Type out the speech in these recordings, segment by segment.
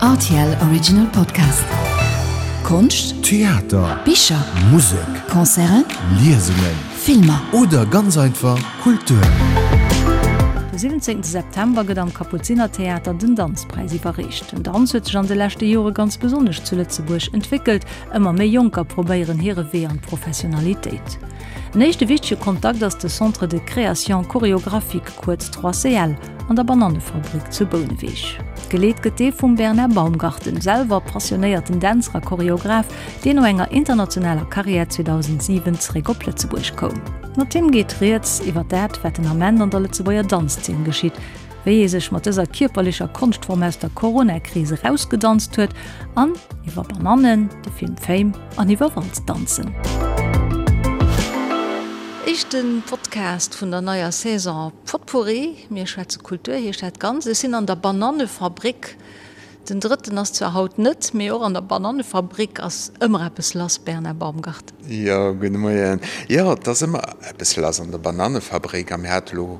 Rtl Original Podcast. Konscht, Theater, Bicher, Musek, Concerten, Liesungen, Filmer. Oder ganz einfach Kultur. De 17 September gëtt am Kapuzinertheater den Danzpräis iwwerreecht. Den Danz huet sech an de leschte Jore ganz besonnesch zu Lëtzebuerg entwéckelt. Ëmmer méi Jonker probéieren hire Wee an d'Professionalitéit. En éischte wichtege Kontakt ass de Centre de Création Chorégraphique, kuerz 3CL, an der Banannefabrik zu Bouneweg. Geleet gëtt dee vum Bernard Baumgarten, selwer passionéierten Dänzer a Choreograph, deen no enger internationaler Karriär 2007 zeréck op Lëtzebuerg koum. Mat him geet rieds iwwer dat, wat den Ament an der Lëtzebuerger Danzzeen geschitt, wéi ee sech mat dëser kierperlecher Konschtform aus der Corona-Kris erausgedanzt huet an iwwer Banannen, de Film Fame an iwwer Walzdanzen. Éischte Podcast vun der neier Saison Potpourri. Mir schwätze Kultur heescht dat Ganzt. Ech sinn an der Banannefabrik. Den drëtten ass zwar haut net, mee och an der Banannefabrik ass ëmmer eppes lass, Bernard Baumgarten. Jo, gudde Moien. Jo, et ass ëmmer eppes lass an der Banannefabrik a mir hate lo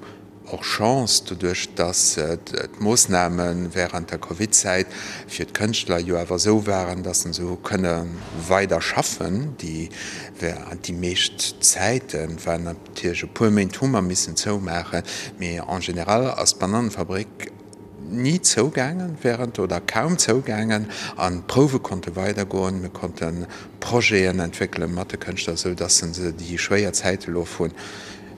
Och Chance, doduerch dass d'Moossname während der Covid-Zäit fir d'Kënschtler jo awer esou waren, dass se hu kënne weider schaffen. Déi meescht Zäite waren natierlech e puer Méint hu mer missen zoumaachen, mee en général ass d'Banannefabrik ni zougaangen während oder kaum zougaangen an d'Prouwe konnte weidergoen. Mir konnte Projeten entwéckele mat de Kënschtler, esou dass se déi schwéier Zäite elo vun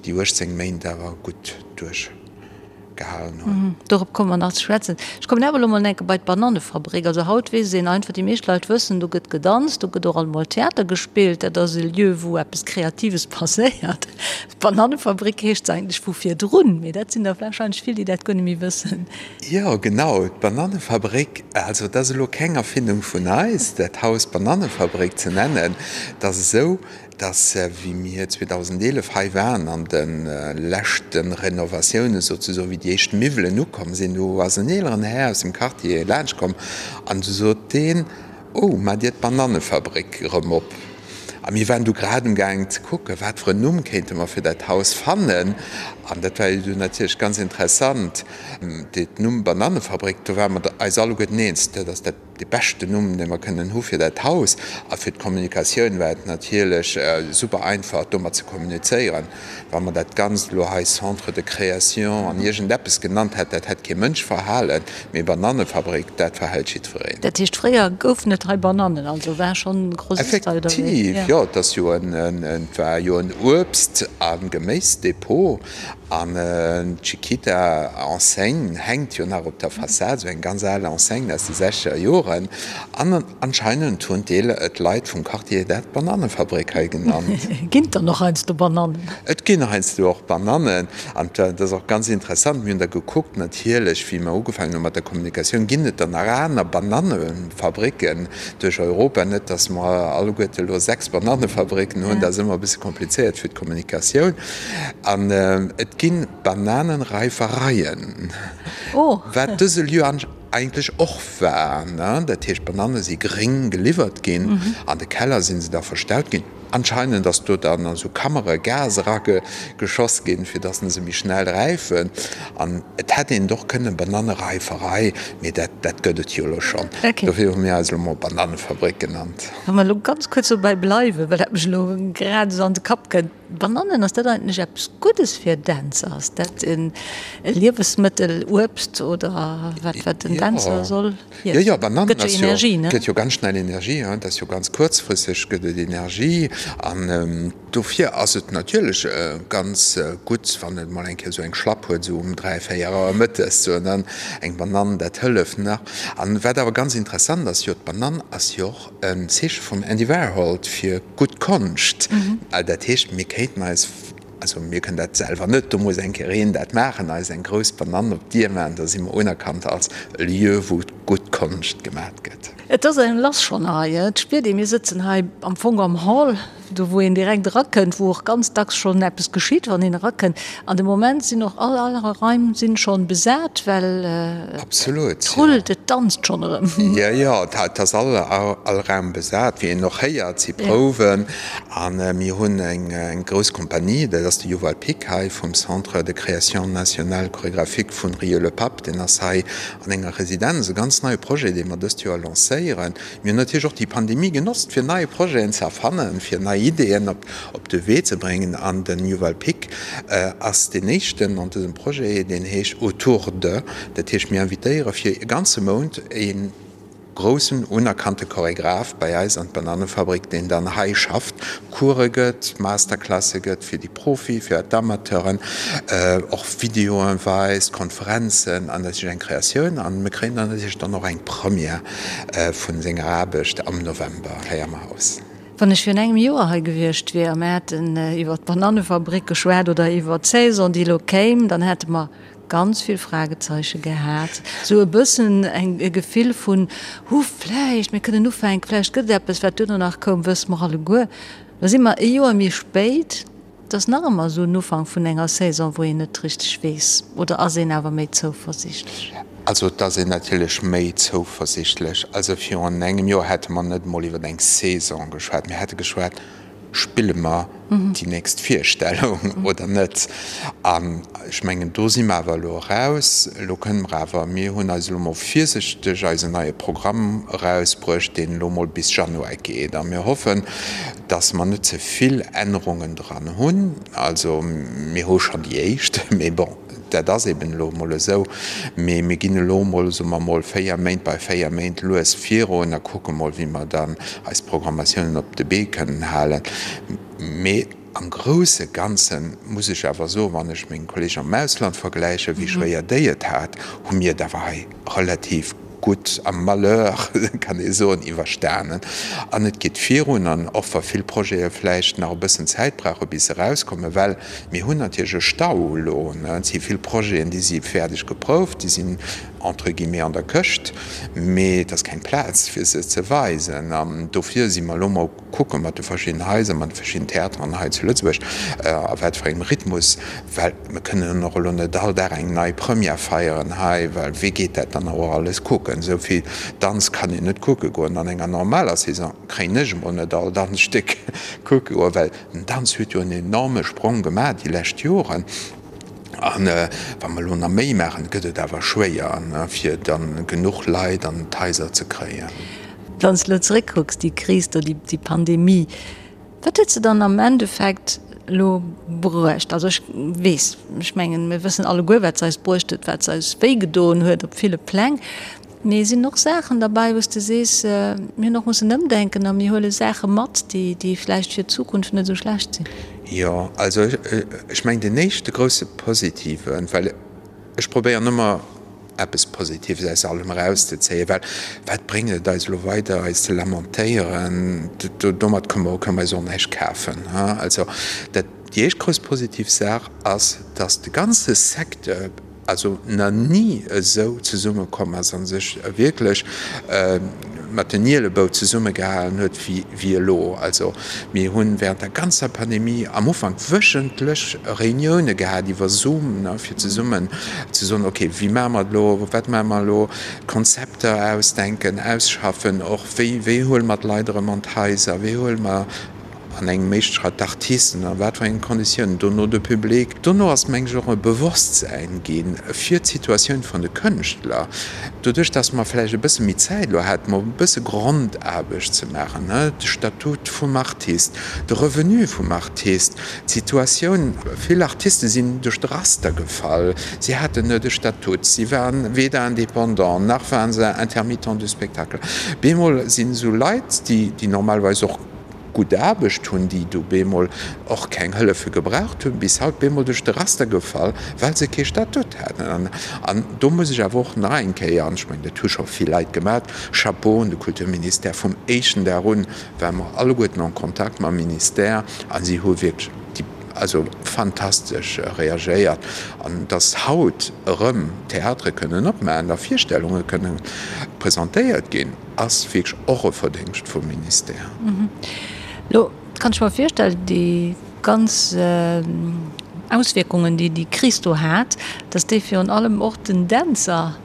déi 18 Méint awer gutt duerchgehalen hunn. Dorop komme mer nach ze schwätzen. Ech kommen awer elo mol enke bei d'Banannefabrik. Also haut weess een einfach, déi meescht Leit wëssen, do gëtt gedanzt, do gëtt och alt mol Theater gespillt, dat ass e Lieu, wou eppes Kreatives passéiert. D'Banannefabrik heescht se eigentlech vu virdrun, mee dat sinn der warscheinlech vill, déi dat guer net méi wëssen. Jo, genau, d'Banannefabrik. Also et ass elo keng Erfindung vun eis, dat Haus Banannefabrik ze nennen. Et ass esou, dass wéi mir 2011 hei waren an de leschte Renovatioune souzesoen, wéi déi éischt Miwwelen ukomm sinn, do ass en eeleren Här aus dem Quartier laanscht komm an du sot deen, Oh, maacht Dir d'Banannefabrik erëm op? A mir waren du grad um gaangen ze kucken, wat fir en Numm kéinte mer fir dat Haus fannen. An dat war jo du natierlech ganz interessant, dee Numm Banannefabrik, do ware mer eis alleguerten eens, dat ass dat Dee beschten Numm, dee mer kënnen hu fir dat Haus. A fir d'Kommunikatioun war et natierlech super einfach, domat ze kommunizéieren. Wa mer dat Ganzt elo hei Centre de création an iergendeppes genannt hätt, dat hätt kee Mënsch verhalen. Mee Banannefabrik, dat verhält jiddwereen. Dat heescht, fréier goufen et hei Banannen, also war schonn Grossist hei oder wéi? Effektiv, jo. Et ass jo en, et war jo en Uebst a Geméisdepot. An d'Chiquita Enseigne hänkt jo nach op der Fassad, esou eng ganz al Enseigne aus de sechzeger Joren. An anscheinend hunn d'Leit vum Quartier dat Banannefabrik hei genannt. Ginn et dann och heiansdo Banannen? Et ginn heiansdo och Banannen. An dat ass och ganz interessant, mir hunn da gekuckt natierlech, wéi mer ugefaangen hu mat der Kommunikatioun, ginn et dann nach aner Banannefabricken duerch Europa? Net, datt mer alleguerte elo 6 Banannefabricken hunn, dat ass ëmmer e bësse komplizéiert fir d'Kommunikatioun. An et gi Bananenreifereien, wat dëse Lieu eigentlech och war. Dat heescht, d'Banane si gréng geliwwert ginn, an de Keller si se da verstaut ginn. Anscheinend ass do dann an esou Kammere Gas erageschoss ginn, fir datt se méi schnell räifen. An et hätt een et och kënnen Bananereiferei, mee dat dat gëtt et jo elo schonn. Dofir hu mir eis elo mol Bananefabrik genannt. Wa mer elo ganz kuerz dobäi bleiwen, well dat mech elo grad esou an de Kapp kënnt. Banannen, ass dat eigentlech eppes Guddes fir Dänzer? Ass dat e Liewesmëttel, Uebst oder wat, wat den Dänzer soll iessen? Jo, jo, Banannen ass jo, gëtt jo ganz schnell Energie, hein, dat ass jo ganz kuerzfristeg gëtt et Energie an dofir ass et natierlech ganz gutt, wann et mol eng Kéier esou eng Schlapp huet, esou um 3, 4 Auer mëttes, esou an dann eng Banann, dat hëlleft nach. An wat awer ganz interessant ass, jo d'Banann ass jo och En Zeeche vum Andy Warhol fir gutt Konscht. Dat heescht, mir kéinten eis, also mir kënnen dat selwer net, do muss eng Kéier een dat maachen, eis eng grouss Banann op d'Dier maachen, da si mer unerkannt als e Lieu, wou gutt Konscht gemat gëtt. Et ass eng lass schonn hei, et spiert een, mir sëtzen hei am Fong am Hall, do wou een direkt erakënnt, wou och ganz dacks schonn eppes geschitt, wann een erakënnt. An de Moment sinn och all all Raim sinn schonn besat, well et rullt, et danzt schonn erëm. Jo, jo, et ass all all Raum besat, wéi een och héiert, si Prouwen. A mir hunn eng grouss Kompanie, dat ass de Yuval Pick hei vum Centre de création nationale chorégraphique vun Rieux-le-Pape, deen ass hei an enger Residenz, e ganz neie Projet, dee mer dëst Joer lancéieren. Mir hunn natierlech och déi Pandemie genotzt, fir nei Projeten ze erfannen, fir nei Ideeën op de Wee ze bréngen. An den Yuval Pick ass deen éischten an dësem Projet, deen heescht Autour de. Dat heescht, mir invitéiere fir e ganze Mount e groussen, unerkannte Choregraph bei eis an d'Banannefabrik, deen dann hei schafft, Course gëtt, Masterclasse gëtt fir déi Profi, fir d'Amateuren, och Videoen weist, Konferenzen an natierlech eng Kreatioun. An mir kréien dann natierlech dann och eng Première vun senger Aarbecht am November hei am Haus. Wann ech virun engem Joer hei gewiescht wier a mir hätten iwwer d'Banannefabrik geschwat oder iwwer d'Saison, déi elo kéim, dann hätte mer ganz vill Fragezeiche gehat, esou e bëssen eng e Gefill vun, Hu vläicht, mir kënnen ufänken, vläicht gëtt et eppes. Wat duerno nach koum, wësse mer alleguer. Lo si mer e Joer méi spéit, et ass nach ëmmer esou en Ufank vun enger Saison, wou een net richteg weess, oder ass een awer méi zouversiichtlech? Also et ass een natierlech méi zouversiichtlech. Also virun engem Joer hätte mer net emol iwwer eng Saison geschwat, mir hätte geschwat, Spille mer déi nächst Virstellung oder net? An ech mengen, do si mer awer elo eraus. Elo kënne mer awer, mir hunn eis elo mol virsichteg eisen neie Programm erausbruecht, deen elo mol bis Januar geet. A mir hoffen, dass mer net ze vill Ännerungen dran hunn. Also mir hu schonn déi éischt, mee bon. Dat ass eben elo emol esou. Mee mir ginn elo emol, soe mer emol, 4 Méint bei 4 Méint lues virun a kucke mol, wéi mer dann eis Programmatiounen op de Bee kënnen halen. Mee am grousse Ganze muss ech awer soen, wann ech meng Kolleegen am Ausland vergläichen, wéi schwéier déi et hat, hu mir et awer hei relativ gutt am Malheur, kann ee soen, iwwerstanen. An et geet virun. An och wa vill Projete vläicht nach e bëssen Zäit brauche bis se erauskommen, well mir hunn natierlech e Stau elo, et si vill Projeten, déi si fäerdeg geprouft, déi sinn entre guillemets an der Këscht, mee et ass keng Plaz fir se ze weisen. An dofir si mer elo mol kucke mat de verschiddenen Haiser, mat de verschiddenen Theateren hei zu Lëtzebuerg, a wat fir engem Rhythmus, well mir kënnen och elo net all Dag eng nei Première feieren hei, well wee geet dat dann och alles kucken? Esou vill Danz kann een net kucke goen. An enger normaler Saison kréien ech emol net all Danzstéck kucke goen, well den Danz huet jo en enorme Sprong gemaach déi lescht Joren. An wa mer elo nach méi maachen, gëtt et awer schwéier, fir dann genuch Leit an d'Haiser ze kréien. Wann s de elo zeréckkucks, déi Kris do, déi Pandemie, wat huet se dann am Endeffekt elo bruecht? Also ech weess, ech mengen, mir wëssen alleguer, wat se eis bruecht huet, wat se eis wéigedoen huet op ville Pläng. Mee sinn och Saachen derbäi, wou s de sees, mir hunn och mussen ëmdenken a mir huele Saache mat, déi, déi vläicht fir d'Zukunft net esou schlecht sinn? Jo, also ech mengen, deen éischte grousse Positiven, well ech probéieren ëmmer eppes Positives aus allem erauszezéien, well wat bréngt et eis elo weider eis ze lamentéieren, domat kënne mer, kënne mer eis och näischt kafen. Also dat, déi éischt grouss positiv Saach ass, datt de ganze Secteur, also na ni esou zesummekomm ass a sech wierklech mat den Ielebou zesummegehalen huet wéi elo. Also mir hu während der ganzer Pandemie am Ufank wöchentlech Reunioune gehat iwwer Zoom, fir zesummen ze soen, okay, wéi maache mer et elo, wat maache mer elo, Konzepter ausdenken, ausschaffen, och wéi wéi huele mer d'Leit erëm an d'Haiser, wéi huele mer An engem éischte Schratt d'Artisten, a wat fir engen Konditiounen, dono de Public. Dono ass, meng ech, och e Bewosstsäin gi fir d'Situatioun vun de Kënschtler, doduerch datt mer vläicht e bësse méi Zäit elo haten, mol e bësse Grondaarbecht ze maachen, de Statut vum Artist, de Revenu vum Artist, d'Situatioun. Vill Artiste sinn duerch de Raster gefall, si haten net e Statut, si waren weder Indépendant nach waren se Intermittent du spectacle. Bemol sinn esou Leit, déi normalerweis och gutt Aarbecht hunn, déi du bemol och keng Hëllefe gebraucht hunn, bis haut bemol duerch de Raster gefall, well se kee Statut haten. An do muss ech awer och nach eng Kéier, an ech mengen, dat hu scho vill Leit gemaach, Chapeau un de Kulturministère, vum éischten Dag un ware mer alleguerten en Kontakt mam Ministère a si hu wierklech déi. Also fantastesch reagéiert. An dass haut erëm Theatere kënnen opmaachen a Virstellunge kënnen presentéiert ginn, ass wierklech och e Verdéngscht vum Ministère. Elo kann ech mer virstellen, déi ganz Auswierkungen, déi déi Kris do hat, dass déi virun allem och den Dänzer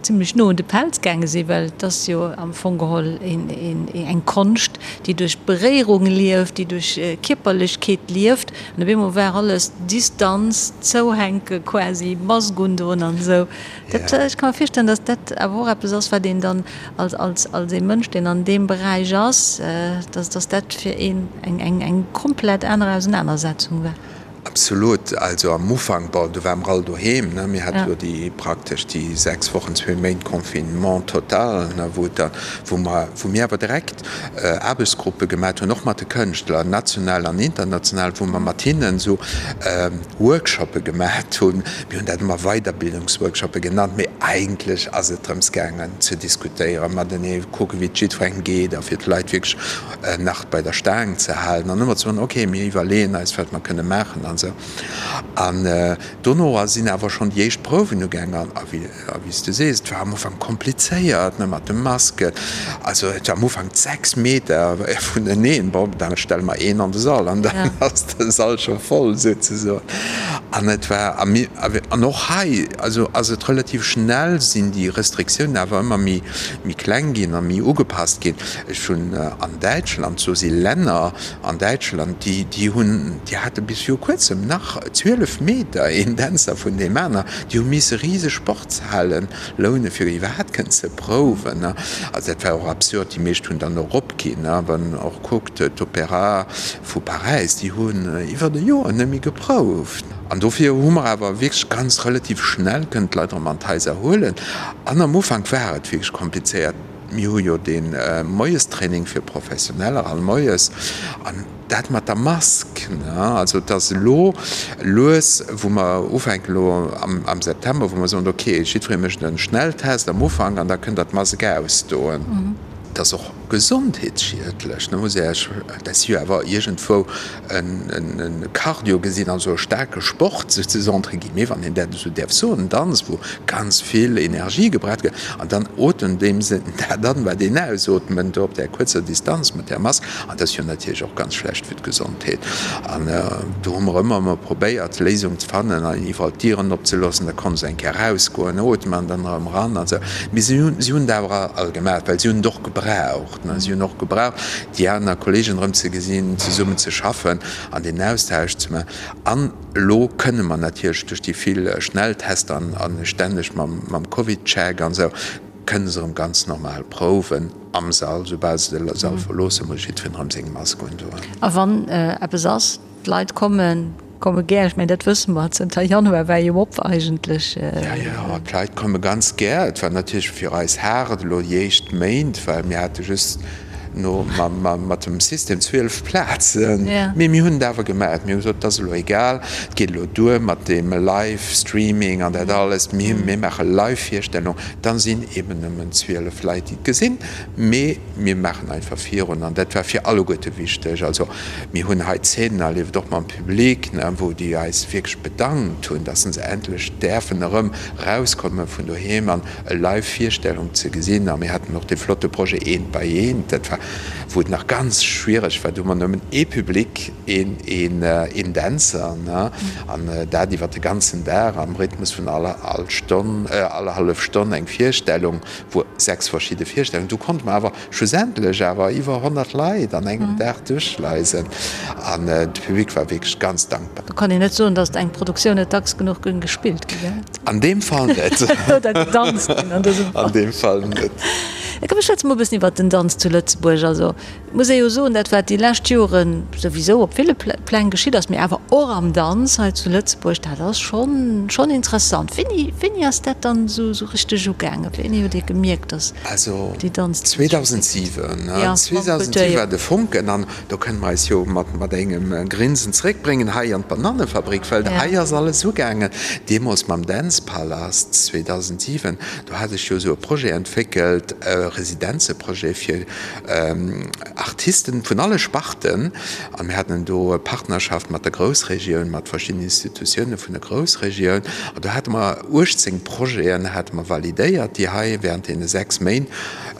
zimlech no un de Pelz gaange sinn, well et ass jo am Fong geholl eng Konscht, déi duerch Beréierung lieft, déi duerch Kierperlechkeet lieft. An op eemol war alles Distanz, zouhänke quasi, Mask undoen an esou. Dat, ech ka mer virstellen, datt dat awer och eppes ass, wat een dann als, als, als ee Mënsch, deen an deem Beräich ass, datt, datt dat fir een eng, eng, eng komplett aner Ausenanersetzung war. Absolut. Also am Ufank, bon, do ware mer all doheem, ne, mir hate jo déi praktesch déi 6 Wochen, zwee Méint Confinement total, ne, wou et da, wou mer, wou mir awer direkt Aarbechtsgruppe gemat hunn, och mat de Kënschtler, national an international, wou mer mat hinnen esou Workshoppe gemat hunn. Mir hunn dat ëmmer Weiderbildungsworkshoppe genannt, mee eigentlech ass et drëms gaangen ze diskutéieren matenee, kucken, wéi et jiddwerengem geet a fir d'Leit wierklech nach bei der Staang ze halen an ëmmer ze soen, ok, mir iwwerleeën eis, wat mer kënne maachen an esou. An dono sinn awer schonn déi éischt Prouwen ugaangen a wéi s du sees, et war am Ufank komplizéiert, ne, mat de Masken. Also et war am Ufank 6 Meter vuneneen. Bon, da stelle mer een an de Sall an dann ass de Sall scho voll souzesoen. An et war, a mir, an och hei, also ass et relativ schnell sinn déi Restriktiounen awer ëmmer méi, méi kleng ginn a méi ugepasst ginn. Ech hunn an Däitschland, do si Länner an Däitschland, déi, déi hunn, déi hate bis viru kuerzem nach 12 Meter een Dänzer vun deem aner, déi hu misse riseg Sportshalen loune fir iwwerhaapt kënnen ze prouwen. Also dat war och absurd, déi meescht hunn dann och opginn. Wann een och kuckt, d'Opéra vu Paräis, déi hunn iwwert e Joer net méi geprouft. An dofir hu mer awer wierklech ganz relativ schnell kënnen d'Leit erëm an d'Haiser huelen. An am Ufank war et wierklech komplizéiert. Mir hu jo dee Moiestraining fir Professioneller all moies an dat mat der Mask, ne, also et ass elo lues, wou mer ufänken elo am September, wou mer soen, okay, jiddweree mécht e Schnelltest am Ufank an da kënnt Der d'Mask ausdoen. Et ass och gesondheetsschiedlech, ne, muss Iech, dat si jo awer iergendwou e Cardio gesinn, also e staarke Sport souzesoen, entre guillemets, wann een dat esou däerf soen, en Danz, wou ganz vill Energie gebraucht gëtt, an dann otemt een dat an, wat een ausootment do op där kuerzer Distanz mat där Mask, an dat ass jo natierlech och ganz schlecht fir d'Gesondheet. An do hu mer ëmmer emol probéiert, Léisung ze fannen an iwwerall d'Dieren opzeloossen, da konnt se eng Kéier erausgoen, ootmen an dann erëm eran an esou. Mee si hunn, si hunn et awer all gemaach, well si hunn et och gebraucht. Si hunn och gebraucht, déi aner Kolleegen erëm ze gesinn, zesummen ze schaffen an deen Austausch ze maachen. An elo kënne mer natierlech duerch déi vill Schnelltester an stänneg mam Covid-Check an esou, kënne se erëm ganz normal prouwen am Sall. Soubal se de Sall verloossen, muss jiddwereen erëm seng Mask undoen. A wann eppes ass, D'Leit kommen, komme gär. Ech mengen, dat wësse mer. Zënter Januar war jo op eigentlech. Jo, jo, d'Leit komme ganz gär. Et war natierlech fir eis haart elo déi éischt Méint, well mir hate just no mat dem System 12 Plazen. Mee mir hunn et awer gemaach. Mir hu gesot, et ass elo egal, et geet elo duer mat deem Live-Streaming an dat alles. Mir maache Live-Virstellung. Dann sinn eeben nëmmen 12 Leit, déi et gesinn. Mee mir maachen einfach virun an dat war fir alleguerte wichteg. Also mir hunn hei Zeenen erlieft, och mam Public, wou déi eis wierklech bedankt hunn, dass se endlech däerfen erëm erauskomme vun doheem an e Live-Virstellung ze gesinn. A mir haten och dee flotte Projet Eent bei eent, dat war, wou et nach ganz schwiereg war, do hu mer nëmmen ee Public, een, een Dänzer, an dat iwwer de ganzen Dag am Rhythmus vun all Stonn, all hallef Stonn eng Virstellung. Wou 6 verschidde Virstellungen, do konnte mer awer schlussendlech awer iwwer 100 Leit an engem Dag duerchschleisen an de Public war wierklech ganz dankbar. Do kann een net soen, datt eng Produktioun net dacks genuch géing gespillt ginn, gell? An deem Fall net. Oder gedanzt ginn an dësem Fall. An deem Fall net. Da komm, schwätze mer e bëssen iwwert den Danz zu Lëtzebuerg. Also Et muss ee jo soen, dat wat déi lescht Jore souwisou op ville Pläng geschitt ass, mee awer och am Danz hei zu Lëtzebuerg, dat ass schonn, schonn interessant. Wéini, wéini ass dat dann esou, esou richteg ugaangen? Wéini hutt Dir gemierkt, datt Also déi Danz. 2007, 2007 war de Fonken an do kënne mer eis jo mat, mat engem Grinsen zeréckbréngen hei an d'Banannefabrik, well hei ass alles ugaangen. Deemools mam Dance Palast 2007, do hat ech jo esou e Projet entwéckelt. Residenzeprojet fir Artisten vun alle Sparten. An mir haten do e Partnerschaft mat der Groussregioun, mat verschiddenen Institutioune vun der Groussregioun. An do hate mer 18 Projeten hate mer validéiert, déi hei während deene 6 Méint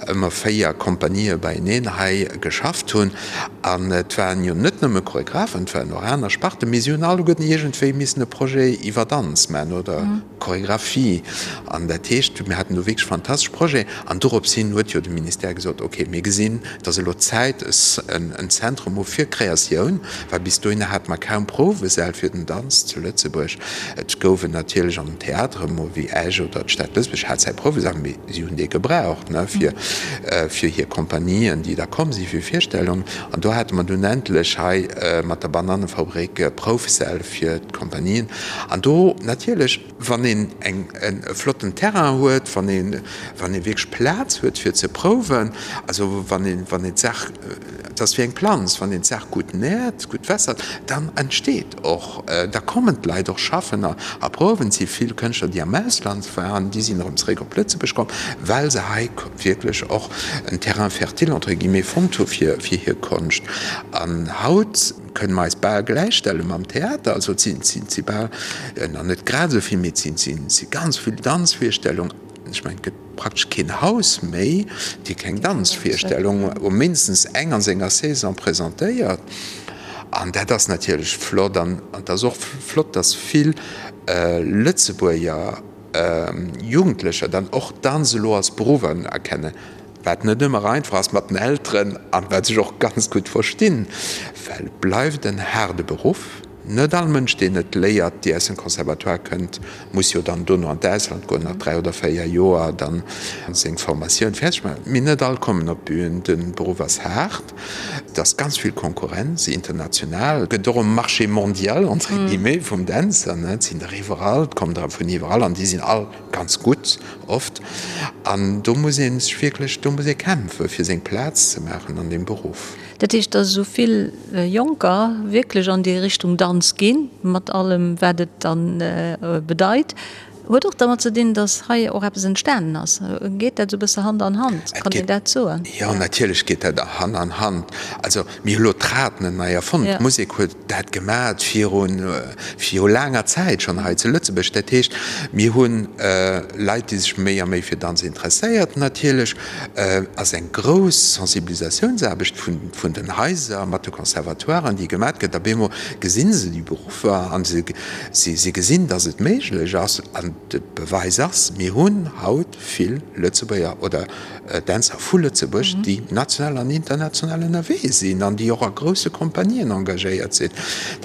ëmmer 4 Kompanië beieneen hei geschafft hunn. An et waren jo net nëmme Choregraphen, et waren och aner Sparten, mee si hunn alleguerten iergendwéi missen e Projet iwwer Danz maachen oder Choregraphie. An dat heescht, mir haten do wierklech fantastesch Projeten. An dorops hin huet jo de Ministère gesot, okay, mir gesinn, et ass elo Zäit, en Zentrum hu fir Kreatioun, well bis dohinner hate mer kaum Prouwesäll fir den Danz zu Lëtzebuerg. Et gouf en natierlech an den Theatere mol wéi Esch oder d'Stad Lëtzebuerg hat säi Prouwesall, mee si hunn dee gebraucht, ne, fir fir hir Kompanien, déi da komm si fir Virstellungen. An do hate mer dunn endlech hei mat der Banannefabrik Proufsäll fir d'Kompanien. An do natierlech, wann een eng e flotten Terrain huet, wann een wann ee wierklech Plaz huet fir ze prouwen, also wann een wann een d'Saach, et ass wéi eng Planz, wann een d'Saach gutt nährt, gutt wässert, dann entsteet och, da kommen d'Leit och schaffen a a prouwen. Et si vill Kënschtler, déi am Ausland waren, déi sinn erëm zeréck op Lëtzebuerg komm, well se hei wierklech och en Terrain fertile entre guillemets fonnt hu fir fir hir Konscht. An haut kënne mer eis bal gläichstelle mam Theater, also et sinn, et si bal, nach net grad esou vill, mee et sinn, si ganz vill Danzvirstellungen. Ech mengen, et gëtt praktesch keen Haus méi, dee keng Danzvirstellung, mindestens eng an senger Saison presentéiert. An dat ass natierlech flott. An et ass och flott, dass vill Lëtzebuerger Jugendlecher dann och Danz elo als Beruff unerkennen. Wat net ëmmer einfach ass mat den Elteren an wat ech och ganz gutt verstinn, well et bleift en haarde Beruff. Net all Mënsch, deen et léiert, déi aus dem Conservatoire kënnt, muss jo dann dono an d'Ausland goen, nach 3 oder 4 Joer dann seng Formatioun fäerdeg maachen. Mee net all kommen op d'Bühn. De Beruff ass haart, et ass ganz vill Konkurrenz, international, et gëtt och e Marché mondial entre guillemets vum Dänzer, ne, et sinn der iwwerall, et kommen der vun iwwerall an déi sinn all ganz gutt oft. An do muss ee sech wierklech, do muss ee kämpfe fir seng Plaz ze maachen an deem Beruff. Dat heescht, datt esou vill Jonker wierklech an déi Richtung Danz ginn, mat allem wat et dann bedeit, huet och dermat ze dinn, datt hei och eppes entstanen ass. Geet dat esou e bësse Hand an Hand? Kann een dat soen? Jo, natierlech geet dat Hand an Hand. Also mir hu lo d'Rad net nei erfonnt. D'Musek huet dat gemat virun, viru laanger Zäit schonn hei zu Lëtzebuerg. Dat heescht, mir hu Leit, déi sech méi a méi fir Danz interesséiert. Natierlech ass eng grouss Sensibilisatiounsaarbecht vun, vun den Haiser mat de Conservatoiren, déi gemat gëtt. Op eemol gesi se déi Beruffer a se, si gesinn, datt et méiglech ass. An de Beweis ass, mir hunn haut vill Lëtzebuerger oder Dänzer vu Lëtzebuerg, déi national an international ënnerwee sinn an déi och a grousse Kompanien engagéiert sinn.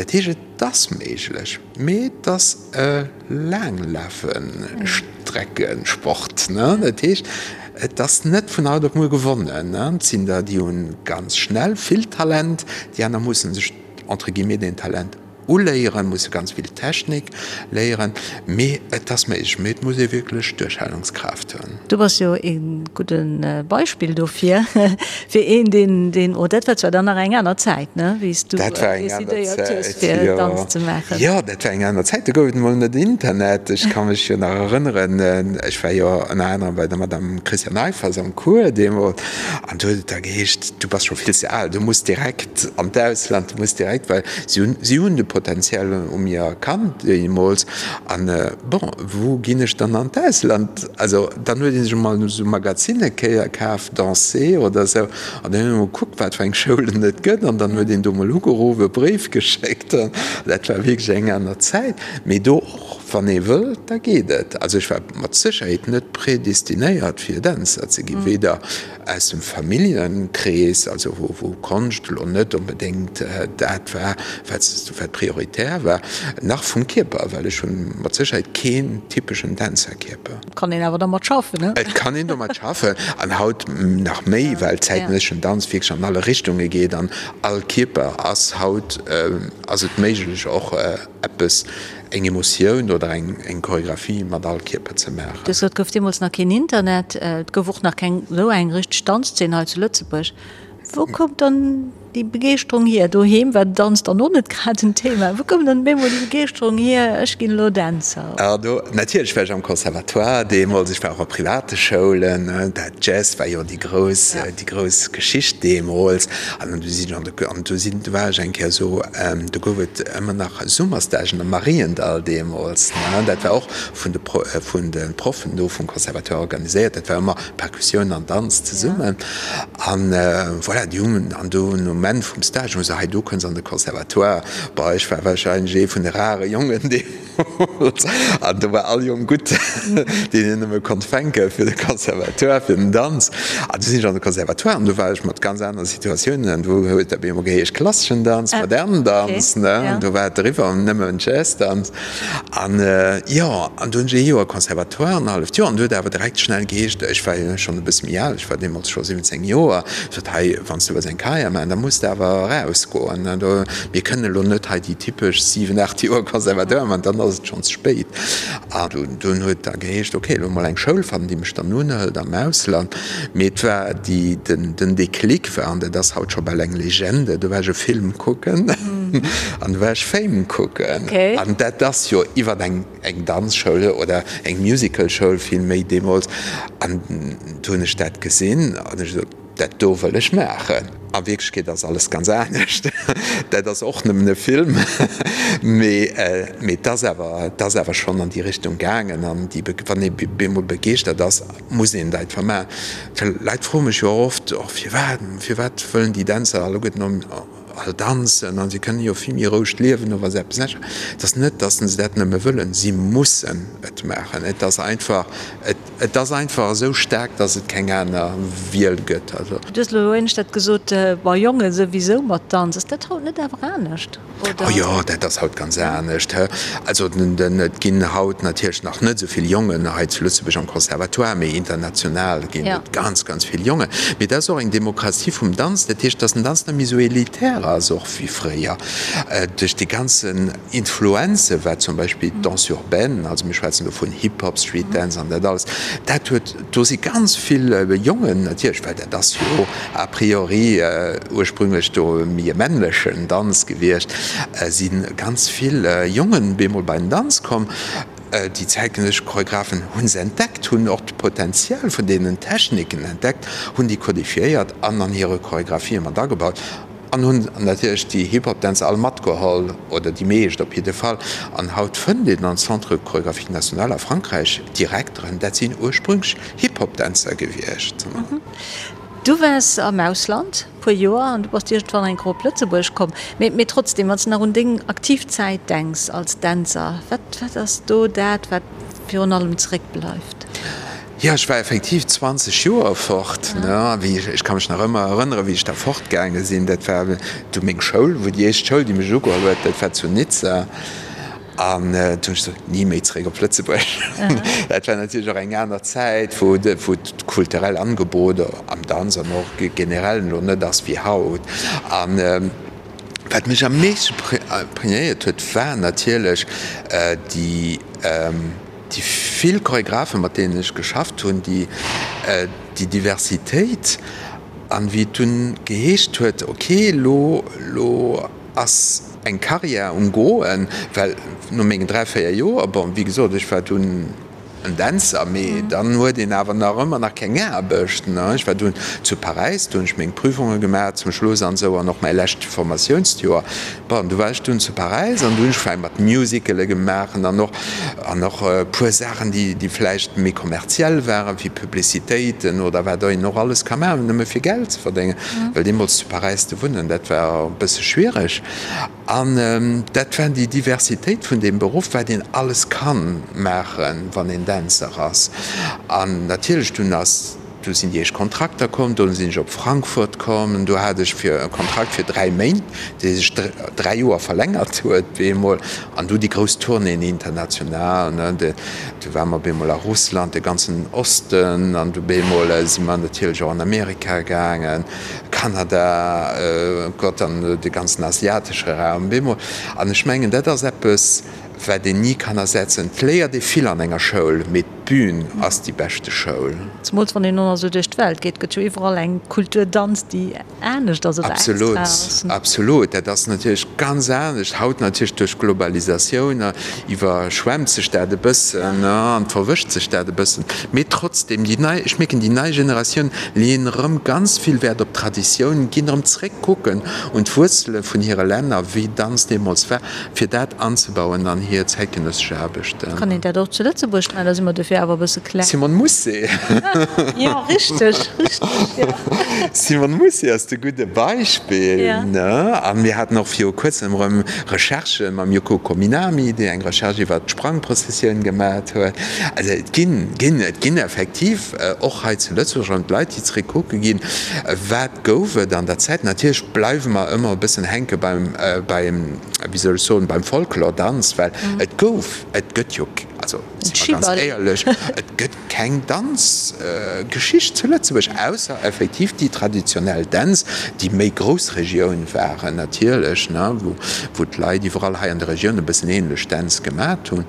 Dat heescht, et ass méiglech, mee et ass e Laanglafestreckensport. Dat heescht, et ass net vun haut op muer gewonnen. Et sinn der, déi hu ganz schnell vill Talent, déi aner musse sech entre guillemets deen Talent Uléieren, musse ganz vill Technik léieren, mee et ass méiglech, mee et muss ee wierklech Duerchhalungskraaft hunn. Du bass jo ee gudde Beispill dofir, fir een, deen, deen, oh dat war zwar dann nach eng aner Zäit, ne, wéi s du decidéiert hues, fir Danz ze maachen. Jo, dat war eng aner Zäit, do gouf et emol net Internet. Ech ka mech jo nach erënneren, ech war jo ënner anerem bei der Madame Christiane Eiffers am Cours deemools, an do huet et da geheescht, du bass scho vill ze al, du muss direkt an d'Ausland, du muss direkt, well Si hunn, si hunn de Potential u mir erkannt deemools. An, bon, wou ginn ech dann an d'Ausland? Also, dann huet ee sech emol esou Magazinne kéier kaf, Danser oder esou, an dann huet een emol gekuckt, wat fir eng Schoulen et gëtt, an dann huet een do emol ugeruff, e Bréif geschéckt. An dat war wierklech eng aner Zäit. Mee do och, wann ee wëll, da geet et. Also ech war mat Sécherheet net predestinéiert, fir Dänzer ze ginn, weder Aus dem Familljenkrees, also wou Konscht elo net onbedéngt dat war, wat prioritär war, nach vum Kierper, well ech hunn mat Sécherheet keen typeschen Dänzerkierper. Et kann een awer dermat schaffen, ne? Et kann een domat schaffen, an haut nach méi, well zäitgenësseschen Danz wierklech an alle Richtunge geet an all Kierper ass haut, ass et méiglech och eppes, eng Emotioun oder eng Choregraphie mat all Kierper ze maachen. Du hues gesot, et gouf deemools nach keen Internet, et gouf och nach keng esou eng richteg Danzzeen hei zu Lëtzebuerg. Wou koum dann. déi Begeeschterung hier? Doheem war Danz dann och net grad en Thema. Wou koum dann op eemol déi Begeeschterung hier, ech ginn elo Dänzer? Ah do, natierlech war ech am Conservatoire deemools, ech war och a private Schoulen, dat Jazz war jo déi grouss, déi grouss Geschicht deemools. An du sinn ech an de, an du sinn, du war ech eng Kéier esou, do gouf et ëmmer nach Summerstagen am Mariendall deemools, ne, dat war och vun de, vun de Proffen do vum Conservatoire organiséiert, dat war ëmmer Perkussioun an Danz zesummen. An voilà, déi hunn, an do um Enn vum Stage hu se, hei du kënns an de Conservatoire. Bon, ech war wahrscheinlech ee vun de rare Jongen deemools, an do war all Jong gutt, deen een nëmme konnt fänke fir de Conservatoire, fir den Danz. An du sinn ech an de Conservatoire an do war ech mat ganz anere Situatiounen an do huet dat op eemol geheescht klasseschen Danz, modernen Danz, ne, an do war et eriwwer, nëmmen Jazzdanz. An jo, an du hunn ech ee Joer Conservatoire, an e halleft Joer, an du huet awer direkt schnell geheescht, ech war jo schonn e bësse méi al, ech war deemools scho 17 Joer, sot, hei, wann s du wëlls eng Carrière maachen, da muss de awer erausgoen, do, mir kënnen elo net hei déi typesch 7, 8 Joer Conservatoire maachen, dann ass et schonn ze spéit. An dunn huet da geheescht, okay, elo mol eng Schoul fannen, déi mech dann unhëlt am Ausland. Mee et war déi, den, den Déclic war, an dat ass haut scho bal eng Legende, do war ech e Film kucken an do war ech Fame kucken. An dat ass jo iwwer eng, eng Danzschoul oder eng Musicalschoul vill méi deemools. An do hunn ech dat gesinn an ech gesot, dat do wëll ech maachen. A Wierklechkeet ass alles ganz anescht. Dat ass och nëmmen e Film, mee, mee et ass awer, et ass awer schonn an déi Richtung gaangen. An déi, wann ee bemol begeeschtert ass, muss een dat einfach maachen. Well Leit froe mech jo oft, och firwat, firwat wëllen déi Dänzer alleguerten all danzen an si kënnen jo vill méi roueg liewen oder wa se eppes anescht. Et ass net, datt se dat nëmme wëllen, si mussen et maachen. Et ass einfach, et ass einfach esou staark, datt et keng aner Wiel gëtt. Also. Du hues elo éinescht dat gesot, bei Jonge souwisou mat Danz. Ass dat haut net awer anescht? Oh jo, dat ass haut ganz anescht. Also et ginn haut natierlech nach net esou vill Jongen hei zu Lëtzebuerg am Conservatoire, mee international ginn et ganz, ganz vill Jongen. Mee dat ass och eng Demokratie vum Danz, dat heescht, datt den Danz net méi esou elitär ass och wéi fréier. Duerch déi ganzen Influenze wat zum Beispill d'Danse urbaine, also mir schwätzen do vun Hip-Hop, Street Dance an dat alles, dat huet, do si ganz vill Jongen natierlech, well dat ass jo a priori ursprünglech do méi e männlechen Danz gewiescht, si ganz vill Jongen bemol bei den Danz komm. Déi zäitgenëssesch Choreographen hu se entdeckt, hunn och d'Potential vun deenen Techniken entdeckt, hunn déi kodifiéiert an an hire Choreographië mat agebaut an hunn natierlech déi Hip-Hop-Dänzer all matgeholl, oder déi meescht op jidde Fall. An haut fënnt een am Centre Chorégraphique National a Frankräich Direkteren, dat sinn ursprünglech Hip-Hop-Dänzer gewiescht. Du waars am Ausland puer Joer an du bass iergendwann eng Kéier op Lëtzebuerg komm. Mee, mee trotzdem, wann s de nach un deng aktiv Zäit denks als Dänzer, wat, wat ass do dat, wat virun allem zeréckbleift? Jo, ech war effektiv 20 Joer fort, ne. Wéi ech, ech ka mech nach ëmmer erënneren, wéi ech da fortgaange sinn. Dat war du meng Schoul, wou déi éischt Schoul, déi mech ugeholl huet, dat war zu Nizza. An du hunn ech gesot, ni méi zeréck op Lëtzebuerg. Dat war natierlech och eng aner Zäit, wou d'kulturell Angebot am Danz an och generell elo net ass wéi haut. An wat mech am meeschte imprégnéiert huet, war natierlech déi vill Choregraphen, mat deenen ech geschafft hunn, déi Diversitéit. An wéi et dunn geheescht huet, ok, elo, elo ass eng Carrière um Goen, well no mengen 3, 4 Joer, bon, wéi gesot, ech war dunn en Dänzer, mee dann huet een awer nach ëmmer nach keng Aarbecht, ne. Ech war dunn zu Paräis, do hunn ech meng Prüfunge gemaach zum Schluss an esou an och mäi lescht Formatiounsjoer. Bon, du war ech dunn zu Paräis an du hunn ech vläicht mat Musicale gemaach an och an och e puer Saachen, déi déi vläicht méi kommerziell waren, wéi Publicitéiten oder wat een och alles ka maachen, nëmme fir Geld ze verdéngen, well deemools zu Paräis ze wunnen, dat war e bësse schwiereg. An dat war déi Diversitéit vun deem Beruff, wat een alles ka maachen, wann een Dänzer ass. An natierlech dunn ass, du sinn déi éischt Kontrakter komm, dunn sinn ech op Frankfurt komm, do hat ech fir e Kontrakt fir 3 Méint, dee sech 3 Joer verlängert huet bemol. An du déi grouss Tournéeën international, ne, du ware mer bemol a Russland, de ganzen Osten, an du bemol si mer natierlech och an Amerika gaangen. Kanada, Gott, an de ganzen asiatesche Raum bemol. An ech mengen, dat ass eppes, wat een ni kann ersetzen. Et léiert ee vill an enger Schoul, mee d'Bün ass déi beschte Schoul. Zemools wann een och nach esou duerch d'Welt geet, gëtt jo iwwerall eng Kultur Danz, déi anescht ass oder extra Absolut, ass. absolut. Dat ass natierlech ganz anescht. Haut natierlech duerch d'Globalisatioun iwwerschwemmt sech dat e bëssen an verwëscht sech dat e bëssen. Mee trotzdem, déi nei, ech mierken, déi nei Generatioun leeën erëm ganz vill Wäert op d'Traditioun, ginn erëm zréck kucken un d'Wuerzele vun hire Länner, wéi Danz deemools war. fir dat anzebauen an hir zäitgenëssesch Aarbechten. Kann een dat och zu Lëtzebuerg maachen? Da si mer dofir awer e bësse kleng. Simone Mousset. Jo, richteg, richteg, jo. Simone Mousset ass de gudde Beispill, ne? A mir haten och viru kuerzem erëm Recherchë mam Yoko Kominami, déi eng Recherche iwwert d'Sprangprozessioun gemat huet. Also et ginn, ginn, et ginn effektiv och hei zu Lëtzebuerg erëm d'Leit, déi zeréck kucke ginn, wat gouf et an der Zäit. Natierlech bleiwe mer ëmmer e bëssen hänke beim, beim, wéi soll ech soen, beim Folklordanz, well et gouf, et gëtt jo, also si mer ganz éierlech, et gëtt keng Danzgeschicht zu Lëtzebuerg, ausser effektiv déi traditionell Dänz, déi méi Groussregioun waren natierlech, ne, wou, wou d'Leit iwwerall hei an der Regioun e bëssen ähnlech Dänz gemat hunn.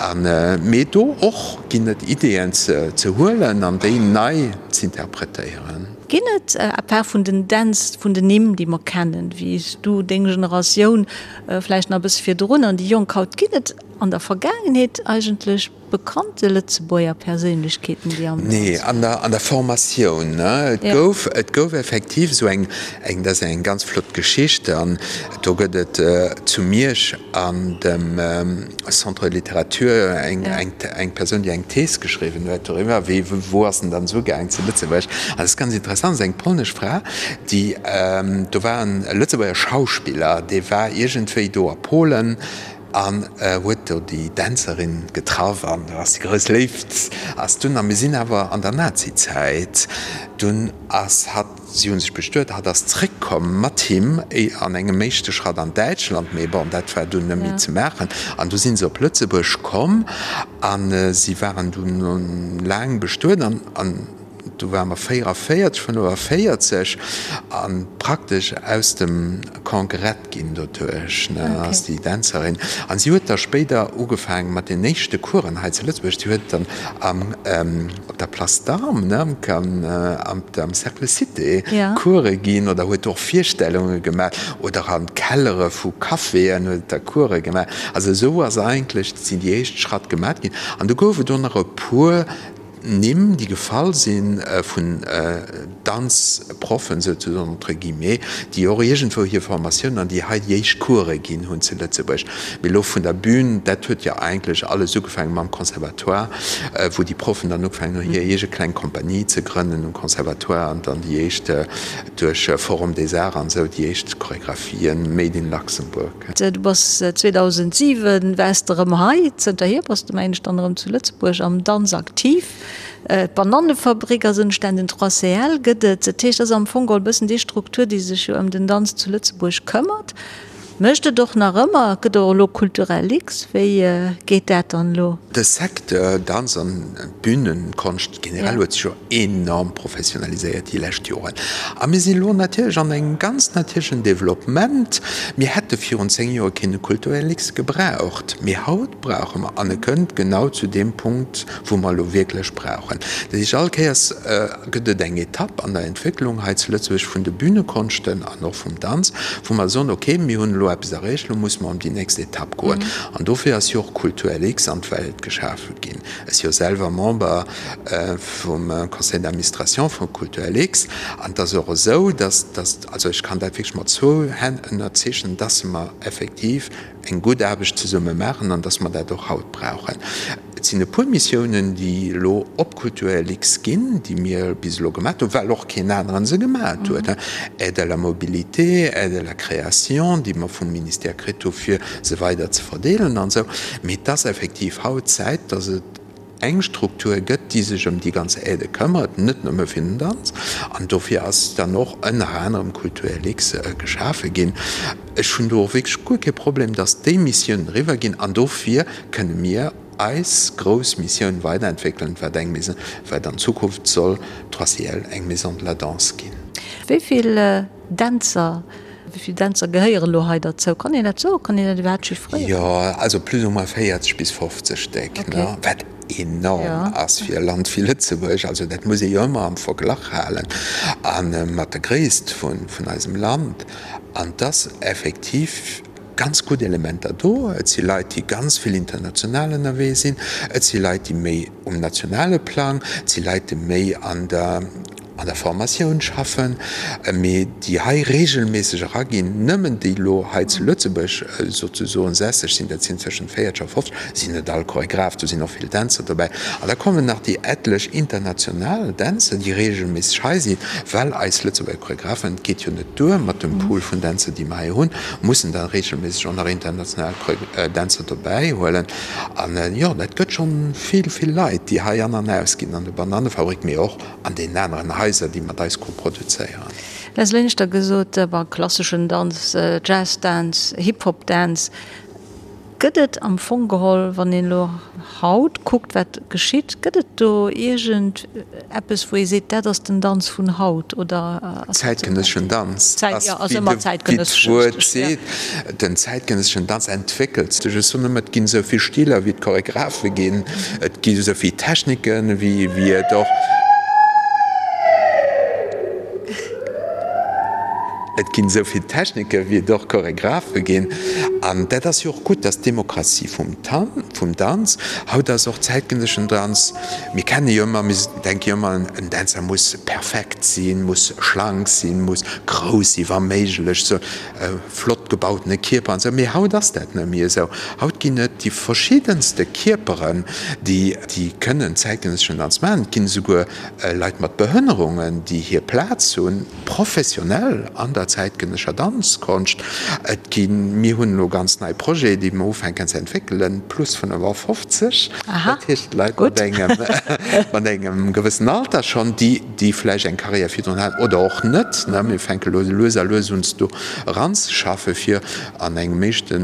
An, mee do och ginn et Ideeën ze, ze huelen an déi nei z'interpretéieren. Ginn et, à part vun den Dänz, vun den Nimm, déi mer kennen, wéi s du, deng Generatioun, vläicht nach e bësse virdrun, an déi Jonk haut, ginn et an der Vergaangenheet eigentlech bekannte Lëtzebuerger Perséinlechkeeten, déi am Danz. Nee, an der, an der Formatioun, ne. Et gouf, et gouf effektiv esou eng, eng, dat ass eng ganz flott Geschicht, an do gëtt et zu Miersch an dem Centre de littérature eng, eng, eng Persoun, déi eng Thees geschriwwen huet doriwwer, wéi, wou ass en dann esou gaang zu Lëtzebuerg. An dat ass ganz interessant, ass eng polnesch Fra, déi, do war en Lëtzebuerger Schauspiller, dee war iergendwéi do a Polen an huet do déi Dänzerin getraff an do ass déi grouss Léift ass dunn, a mir sinn awer an der Nazizäit, dunn ass hatt, Si hu sech bestuet, hatt ass zréckkomm mat him an engem éischte Schratt an Däitschland, mee bon, dat war dunn net méi ze maachen. An du si se op Lëtzebuerg komm a si waren dunn laang bestuet an du ware mer 44, 45 a praktesch aus dem Camp gerett ginn doduerch, ne, ass déi Dänzerin. An si huet da spéider ugefaange mat den éischte Coursen hei zu Lëtzebuerg. Si huet dann am, op der Place d'Armes, ne, am, am Cercle Cité Course ginn oder huet och Virstellunge gemaach oder an Kellere vu Caféen huet da Course gemaach. Also esou ass eigentlech, sinn déi éischt Schratt gemaat ginn. An du gouf et och nach e puer Nimm, déi gefall si vun Danzproffen, souzesoen, entre guillemets, déi och iergendwou hir Formatioun an déi hei déi éischt Course ginn hunn zu Lëtzebuerg. Mee elo vun der Bühn, dat huet jo eigentlech alles ugefaange mam Conservatoire, wou déi Proffen dann ugefaangen hunn, hir eege kleng Kompanie ze grënnen um Conservatoire an dann déi éischt duerch Forum des Arts an esou déi éischt Choregraphien made in Luxembourg. Du bass 2007 waars de erëm hei. Zënterhier bass de, mengen ech, dann erëm zu Lëtzebuerg am Danz aktiv. D'Banannefabrik ass entstanen, den 3CL gëtt et. Dat heescht, dat ass am Fong geholl e bëssen déi Struktur, déi sech jo ëm den Danz zu Lëtzebuerg këmmert. Mécht et och nach ëmmer. Et gëtt och elo Culturel X. Wéi geet dat dann elo? De Secteur Danz an Bühnenkonscht generell huet sech jo enorm professionaliséiert déi lescht Joren. A mir sinn elo natierlech an engem ganz natierlechen Développement. Mir hätte virun 10 Joer keen Kulturellix gebraucht, mee haut brauche mer, an e kënnt genau zu deem Punkt, wou mer elo wierklech brauchen. Dat heescht, all Kéiers gëtt et eng Etapp an der Entwécklung hei zu Lëtzebuerg vun de Bühnekonschten an och vum Danz, wou mer soen, okay, mir hunn elo eppes erreecht, elo musse mer an déi nächst Etapp goen. An dofir ass jo och Kulturellix an d'Welt geschafe ginn. Ech si jo selwer Member vum Conseil d'administration vu Kulturlux an et ass och esou, dass, dass, also ech kann dat wierklech mat zwou Hänn ënnerzeechnen, dass mer effektiv eng gutt Aarbecht zesumme maachen an dass mer dat och haut brauchen. Et sinn e puer Missiounen, déi elo op Kulturlux ginn, déi mir bis elo gemaach hunn, well och keen aneren se gemaach huet, Aide à la mobilité, Aide à la création, déi mer vum Ministère kritt hu fir se weider ze verdeelen an esou. Mee et ass effektiv haut Zäit, dass et eng Struktur gëtt, déi sech ëm déi ganz Aidë këmmert, net nëmme fir den Danz. An dofir ass dann och ënner anerem Kulturlux geschafe ginn. Ech hunn do och wierklech guer kee Problem, dass déi Missiounen eriwwer ginn. An dofir kënne mir eis grouss Missioun weiderentwéckelen, wat eng Maison, wat an Zukunft soll d'Troisièle eng Maison de la Danse ginn. Wéi vill Dänzer, wéi vill Dänzer gehéieren elo hei derzou? Kann een dat soen? Kann een dat iwwerhaapt chiffréieren? Jo, also plus ou moins 40 bis 50 Stéck, ne? Wat enorm ass fir e Land wéi Lëtzebuerg. Also dat muss ee jo ëmmer am Verglach halen a mat der Gréisst vun eisem Land. An et ass effektiv ganz gutt Elementer do. Et si Leit, déi ganz vill international ënnerwee sinn. Et si Leit, déi méi um nationale Plang, et si Leit, déi méi an der an der Formatioun schaffen, mee déi hei regelméisseg eraginn, nëmmen déi elo hei zu Lëtzebuerg souzesoen sässeg sinn, dat sinn tëschent 40 a 50, sinn net all Choregraph, do sinn och vill Dänzer dobäi. An da kommen nach déi etlech international Dänzer, déi regelméisseg hei sinn, well eis Lëtzebuerger Choregraphen, et geet jo net duer mat dem Pool vun Dänzer, déi mer hei hunn, mussen da regelméisseg och nach international Dänzer dobäi huelen. An jo, dat gëtt schonn vill, vill Leit, déi hei an an ausginn an der Banannefabrik, mee och an deenen aneren Haiser, déi mat eis koproduzéieren. Leslie Linster gesot, bon, klasseschen Danz, Jazz-Dance, Hip-Hop-Dance, gëtt et am Fong geholl, wann een elo haut kuckt, wat geschitt, gëtt et do iergend eppes, wou ee seet, dat ass den Danz vun haut, oder ass dat ze Zäitgenësseschen Danz ass, wéi d'Wuert seet, den zäitgenësseschen Danz entwéckelt sech. Ech soen ëmmer, et ginn esou vill Stiler, wéi et Choregraphe ginn. Et gi esou vill Techniken, wéi et och Et ginn esou vill Techniken, wéi et och Choregraphe ginn. An dat ass jo och gutt, dat ass d'Demokratie vum vum Danz. Haut ass och zäitgenësseschen Danz, mir kenne jo ëmmer, mir denke jo ëmmer, en Dänzer muss perfekt sinn, muss schlank sinn, muss grouss sinn, wa méiglech, sou. E flott gebautene Kierper an esou, mee haut ass dat net méi esou. Haut ginn et déi verschiddenste Kierperen, déi déi kënnen zäitgenësseschen Danz maachen. Et ginn esouguer Leit mat Behënnerungen, déi hir Plaz hunn, professionell an der zäitgenëssescher Danzkonscht. Et ginn, mir hunn elo ganz nei Projete, déi mer ufänken ze entwéckelen, plus 55, dat heescht Leit mat engem mat engem gewëssen Alter schonn, déi déi vläicht eng Carrière virdrun haten oder och net, ne, mir fänke lo lues a lues un do eranzeschaffen, fir an engem éischte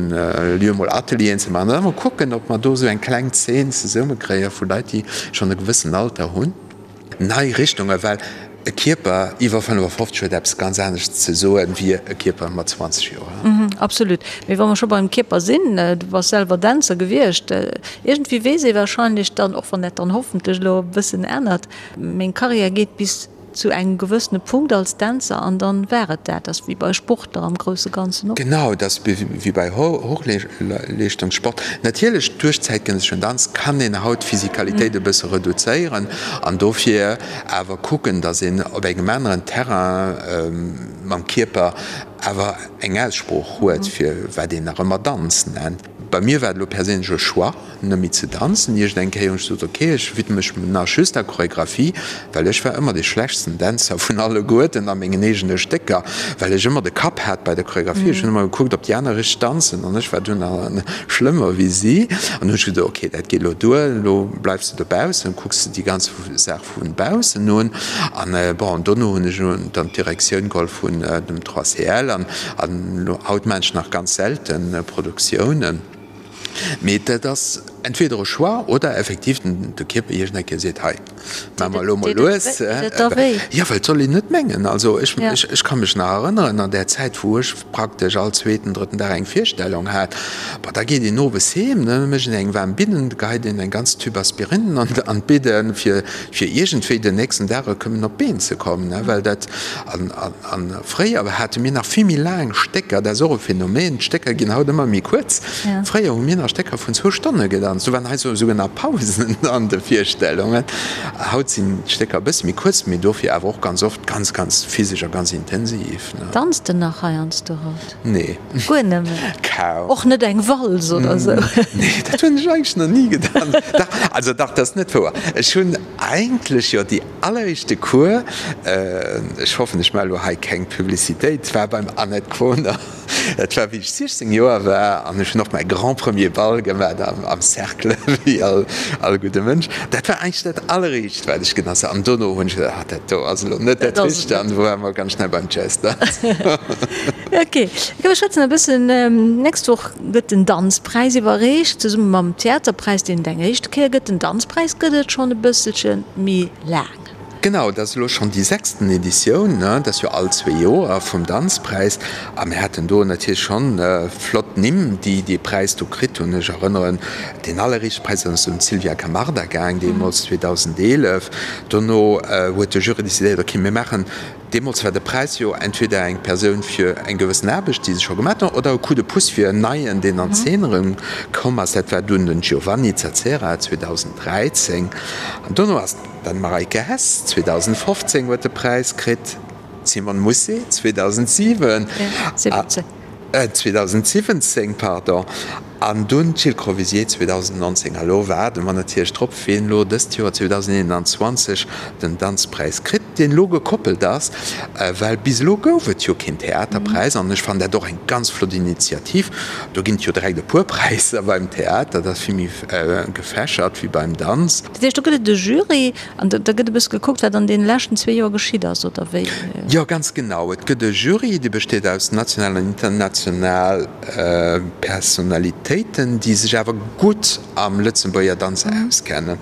Lieu mol Atelieren ze maachen an da mol kucken, ob mer do esou eng kleng Zeen zesummekréie vu Leit, déi schonn e gewëssen Alter hunn. Nei Richtungen, well e Kierper iwwer 55 huet eppes ganz anescht ze soen, wéi e Kierper mat 20 Joer. Absolut. Mee wa mer scho beim Kierper sinn, du bass selwer Dänzer gewiescht, iergendwéi weess ee wahrscheinlech dann, och wann dat dann hoffentlech elo e bëssen ännert, Meng Karriär geet bis zu engem gewëssene Punkt als Dänzer an dann war et dat. Ass wéi bei Sportler am grousse Ganzen och. Genau, dat ass wéi bei Hochleeschtungssport. Natierlech duerch zäitgenësseschen Danz kann een haut d'Physikalitéit e bësse reduzéieren an dofir awer kucken, datt een op engem aneren Terrain mam Kierper awer eng Aussprooch huet, fir wat een nach ëmmer Danz nennt. Bei mir war et elo perséinlech e Choix, net méi ze danzen. Iergend eng Kéier hunn ech gesot, ok, ech widme mech nach just der Choregraphie, well ech war ëmmer dee schlechtsten Dänzer vun alleguerten a mengen eegene Stécker, well ech ëmmer de Kapp hat bei der Choregraphie. Ech hunn ëmmer gekuckt, ob déi aner richteg danzen an ech war dunn schlëmmer wéi si. An hunn ech gesot, ok, dat geet elo duer, elo bleifs de dobaussen, kucks de déi ganz Saach vu baussen un. An bon, dono hunn ech dann d'Direktioun geholl vun dem 3CL an haut maachen ech nach ganz selten Produktiounen. Mee dat ass entweder e Choix oder effektiv de Kierper iergend eng Kéier seet, hei, maache mer elo mol lues. Jo, well et soll een net mengen, also ech, ech ka mech nach erënneren an där Zäit, wou ech praktesch all zweeten, drëtten Dag eng Virstellung hat, bon, da geet een owes heem, da mécht een eng waarm Bidden, da geheit een eng ganz Tüb Aspirinen an d'Bidden, fir, fir iergendwéi den nächsten Dag erëm op d'Been ze kommen, well dat, an, an fréier hate mir nach vill méi laang Stécker, dat ass och e Phänomen, d'Stécker ginn haut ëmmer méi kuerz, fréier hu mir nach Stécker vun zwou Stonne gedanzt, do waren hei souguer nach Pausen an de Virstellungen, haut sinn d'Stécker e bësse méi kuerz, mee dofir awer och ganz oft ganz, ganz physesch a ganz intensiv. Danzt de nach heiansdo haut? Nee. Guer net méi? Kaum. Och net eng Walz oder sou? Nee, dat hunn ech eigentlech nach ni gedanzt. Dach, also dach, dat ass net wouer. Ech hunn eigentlech jo déi alleréischte Cours, ech hoffen, ech maache lo hei keng Publicitéit, war beim Annette Quoner. Dat war wéi ech 16 Joer war an ech hunn och mäi grand premier Ball gemaach am Cercle, wéi all gudde Mënsch. Dat war eigentlech dat alleréischt, wat ech gedanzt hunn. An dono hunn ech geduecht, ah, dat do ass elo net dat Richtegt an du ware mer ganz schnell beim Jazz-Danz. Ok, mir schwätzen e bëssen, Nächst Woch gëtt den Danzpräis iwwerreecht, zesumme mam Theaterpräis, deen et eng éischte Kéier gëtt. Den Danzpräis gëtt et schonn e bësselche méi laang. Genau, dat ass elo schonn déi sechsten Editioun, dat ass jo all zwee Joer, vum Danzpräis. A mir haten do natierlech schonn flott Nimm, déi dee Präis do kritt hunn. Ech erënneren, deen alleréischte Präis ass un d'Sylvia Camarda gaang, deemools 2011. Dono huet de Jury decidéiert, okay, mir maachen Deemools war de Präis jo entweder eng Persoun fir eng gewëssen Aarbecht, déi se scho gemaat hunn, oder e Coup de pouce fir en Neien, deen an d'Zeen erëm komm ass. Dat war dunn den Giovanni Zazzera 2013. An dono ass dann d'Mareike Hess 2015 huet de Präis kritt, d'Simone Mousset 2007. 2017, pardon, an dunn d'Jill Crovisier 2019. A lo waarde mer natierlech drop, wien elo dëst Joer 2021 den Danzpräis kritt, deen elo gekoppelt ass, well bis elo gouf et jo keen Theaterpräis. An ech fannen dat och eng ganz flott Initiativ. Do ginn et jo direkt e puer Präisser beim Theater, dat ass vill méi gefächert wéi beim Danz. Dat heescht, do gëtt et e Jury An da gëtt e bësse gekuckt, wat an deene leschten zwee Joer geschitt ass, oder wéi? Jo, ganz genau. Et gëtt e Jury, dee besteet aus national an international Personalitéiten, déi sech awer gutt am Lëtzebuerger Danz auskennen.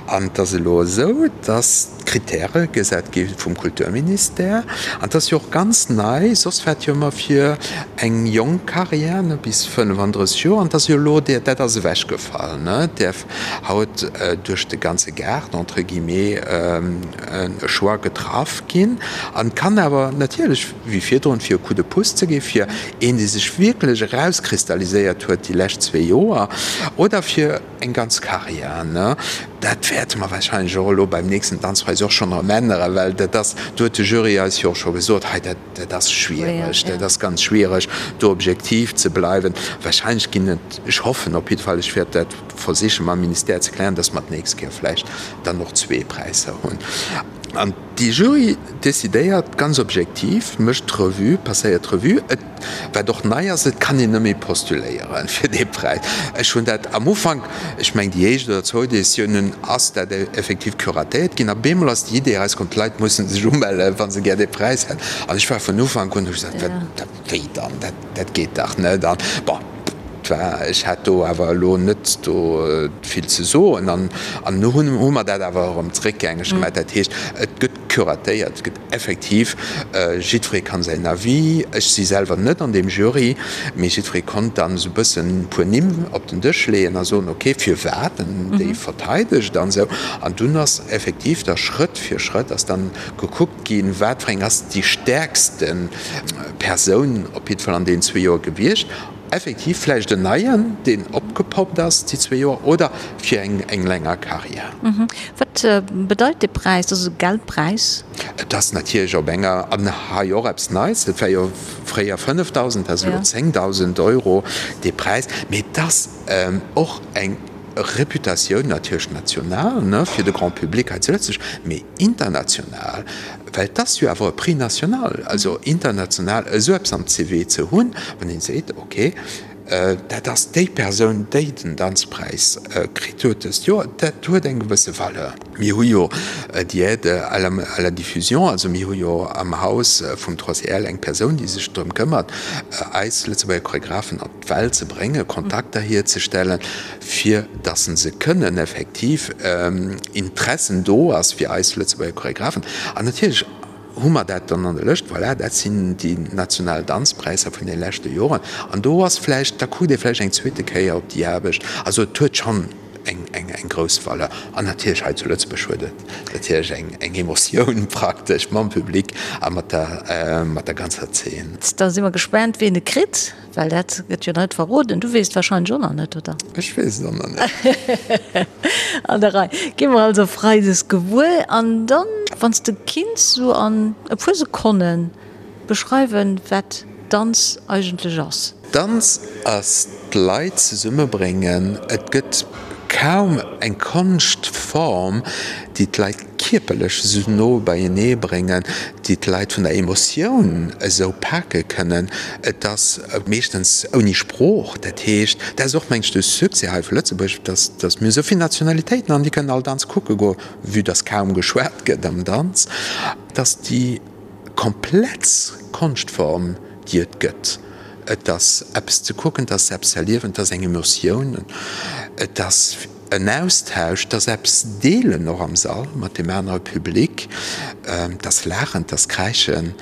An et ass elo esou, dass d'Kritäre gesat gi vum Kulturministère. An et ass jo och ganz nei, soss war et jo ëmmer fir eng jonk Carrière, ne, bis 35 Joer. An et ass jo elo, dat ass ewechgefall, ne, däerf haut duerch de ganze Gaart entre guillemets e Choix getraff ginn an kann awer natierlech wéi virdrun fir e Coup de pouce ze gi fir een dee sech wierklech erauskristalliséiert huet déi lescht zwee Joer oder fir eng ganz Carrière. Dat wäerte mer wahrscheinlech och elo beim nächsten Danzpräis och schonn erëm änneren, well dat ass, do huet de Jury eis jo och scho gesot, hei dat dat ass schwiereg, dat ass ganz schwiereg do objektiv ze bleiwen. Wahrscheinlech ginn et, ech hoffen op jidde Fall, ech wäert dat versiche mam Ministère ze klären, dass mer d'nächst Kéier vläicht dann och zwee Präisser hunn. An déi Jury decidéiert ganz objektiv, mécht d'Revue, passéiert d'Revue. Et, wat och nei ass, et kann een net méi postuléiere fir dee Präis. Ech hunn dat am Ufank, ech mengen déi éischt oder zwou Editiounen ass dat effektiv curatéiert ginn a bemol ass déi Idee erauskomm, d'Leit musse sech umellen, wa se gär dee Präis hätten. An ech war vun Ufank un, hu ech gesat, wat, wéi dann, dat, dat geet dach net. An bon, et war, ech hat do awer elo net do vill ze soen. An, an nu hunn, hu mer dat awer erëm zréckgängeg gemaach. Dat heescht, et gëtt curatéiert, et gëtt effektiv, jiddweree kann säin Avis, ech si selwer net an deem Jury, mee jiddweree konnt dann esou e bëssen e puer Nimm op den Dësch leeën a soen, okay, firwat en déi verteidegt an esou. An dunn ass effektiv da Schrëtt fir Schrëtt ass dann gekuckt ginn, wat fir eng ass déi stäerkste Persoun op jidde Fall an deenen zwee Joer gewiescht. Effektiv vläicht en neien, deen opgepoppt ass déi zwee Joer, oder fir eng länger Karriär. Wat bedeit dee Präis? Dat ass e Geldpräis? Et ass natierlech op enger, an hei och eppes Neits, et war jo fréier 5.000, dat ass elo 10.000 Euro dee Präis, mee et ass och eng Reputatioun natierlech national, ne, fir de Grand public hei zu Lëtzebuerg, mee international, well et ass jo awer e Prix national, also international esou eppes am CV ze hunn, wann een seet, okay, dat ass déi Persoun, déi den Danzpräis kritt huet dëst Joer, dat huet eng gewësse Valeur. Mir hu jo déi Aide à la, à la diffusion, also mir hu jo am Haus vum 3CL eng Persoun, déi sech drëm këmmert, eis Lëtzebuerger Choregraphen an d'Welt ze bréngen, Kontakter hierzestellen, fir dass se kënnen effektiv Interessen do ass fir eis Lëtzebuerger Choregraphen. An natierlech hu mer dat dann an der Lëscht, voilà, dat sinn déi national Danzpräisser vun de leschte Joren. An do ass vläicht, da kuckt ee vläicht eng zweete Kéier op déi Aarbecht. Also et huet schonn eng grouss Valeur. An natierlech hei zu Lëtzebuerg huet et natierlech eng Emotioun praktesch mam Public a mat der ganzer Zeen. Da si mer gespaant, wien e kritt. Well dat gëtt jo net verroden. Du weess et wahrscheinlech och nach net, oder? Ech weess et och nach net. An der Rei. Gi mer also Freides gewuer. An dann, wann s de kinns sou an e puer Sekonnen beschreiwen, wat Danz eigentlech ass. Danz ass d'Leit zesummebréngen. Et gëtt kaum eng Konschtform, déi d'Leit kierperlech esou no beienee bréngen, déi d'Leit vun der Emotioun esou pake kënnen. Et ass meeschtens ouni Sprooch, dat heescht, dat ass och mengen ech de Succès hei vu Lëtzebuerg, dass dass mir esou vill Nationalitéiten an déi kënnen all Danz kucke goen, vue dass kaum geschwat gëtt am Danz, dass déi komplex Konschtform déi et gëtt. Et ass eppes ze kucken, et ass eppes ze erliewen, et ass eng Emotioun, et ass. en Austausch, 't ass eppes deelen och am Sall mat deem anere Public, 't ass laachen, 't ass kräischen,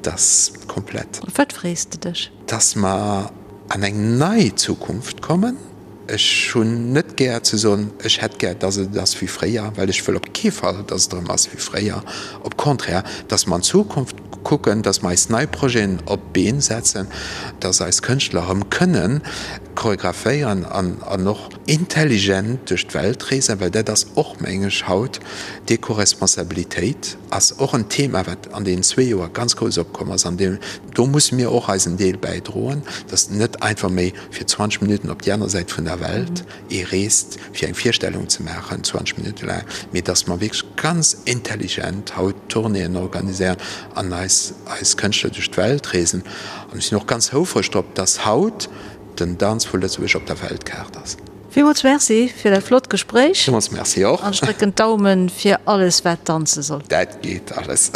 't ass komplett. Op wat frees de dech? Dass mer an eng nei Zukunft kommen. Ech hunn net gär ze soen, ech hätt gär, dass et ass wéi fréier, well ech wëll op kee Fall, dass et erëm ass wéi fréier. Op Contraire, dass mer an d'Zukunft kucken, dass mer eis nei Projeten op d'Been setzen, dass eis Kënschtler erëm kënnen choreographéieren an och intelligent duerch d'Welt reesen, well dat ass och, meng ech, haut d'Ecoresponsabilitéit ass och en Thema, wat an deenen zwee Joer ganz grouss opkomm ass an deem, do musse mir och eisen Deel bäidroen, dass net einfach méi fir 20 Minutten op déi aner Säit vun der Welt ee reest, fir eng Virstellung ze maachen, 20 Minutte laang, mee dass mer wierklech ganz intelligent haut Tournéeën organiséieren an eis eis Kënschtler duerch d'Welt reesen. An ech sinn och ganz houfreg drop, dass haut den Danz vu Lëtzebuerg op der Weltkaart ass. Villmools Merci fir dat flott Gespréich. Villmools Merci och. An ech drécken d'Daumen fir alles wat danze soll. Dat geet alles.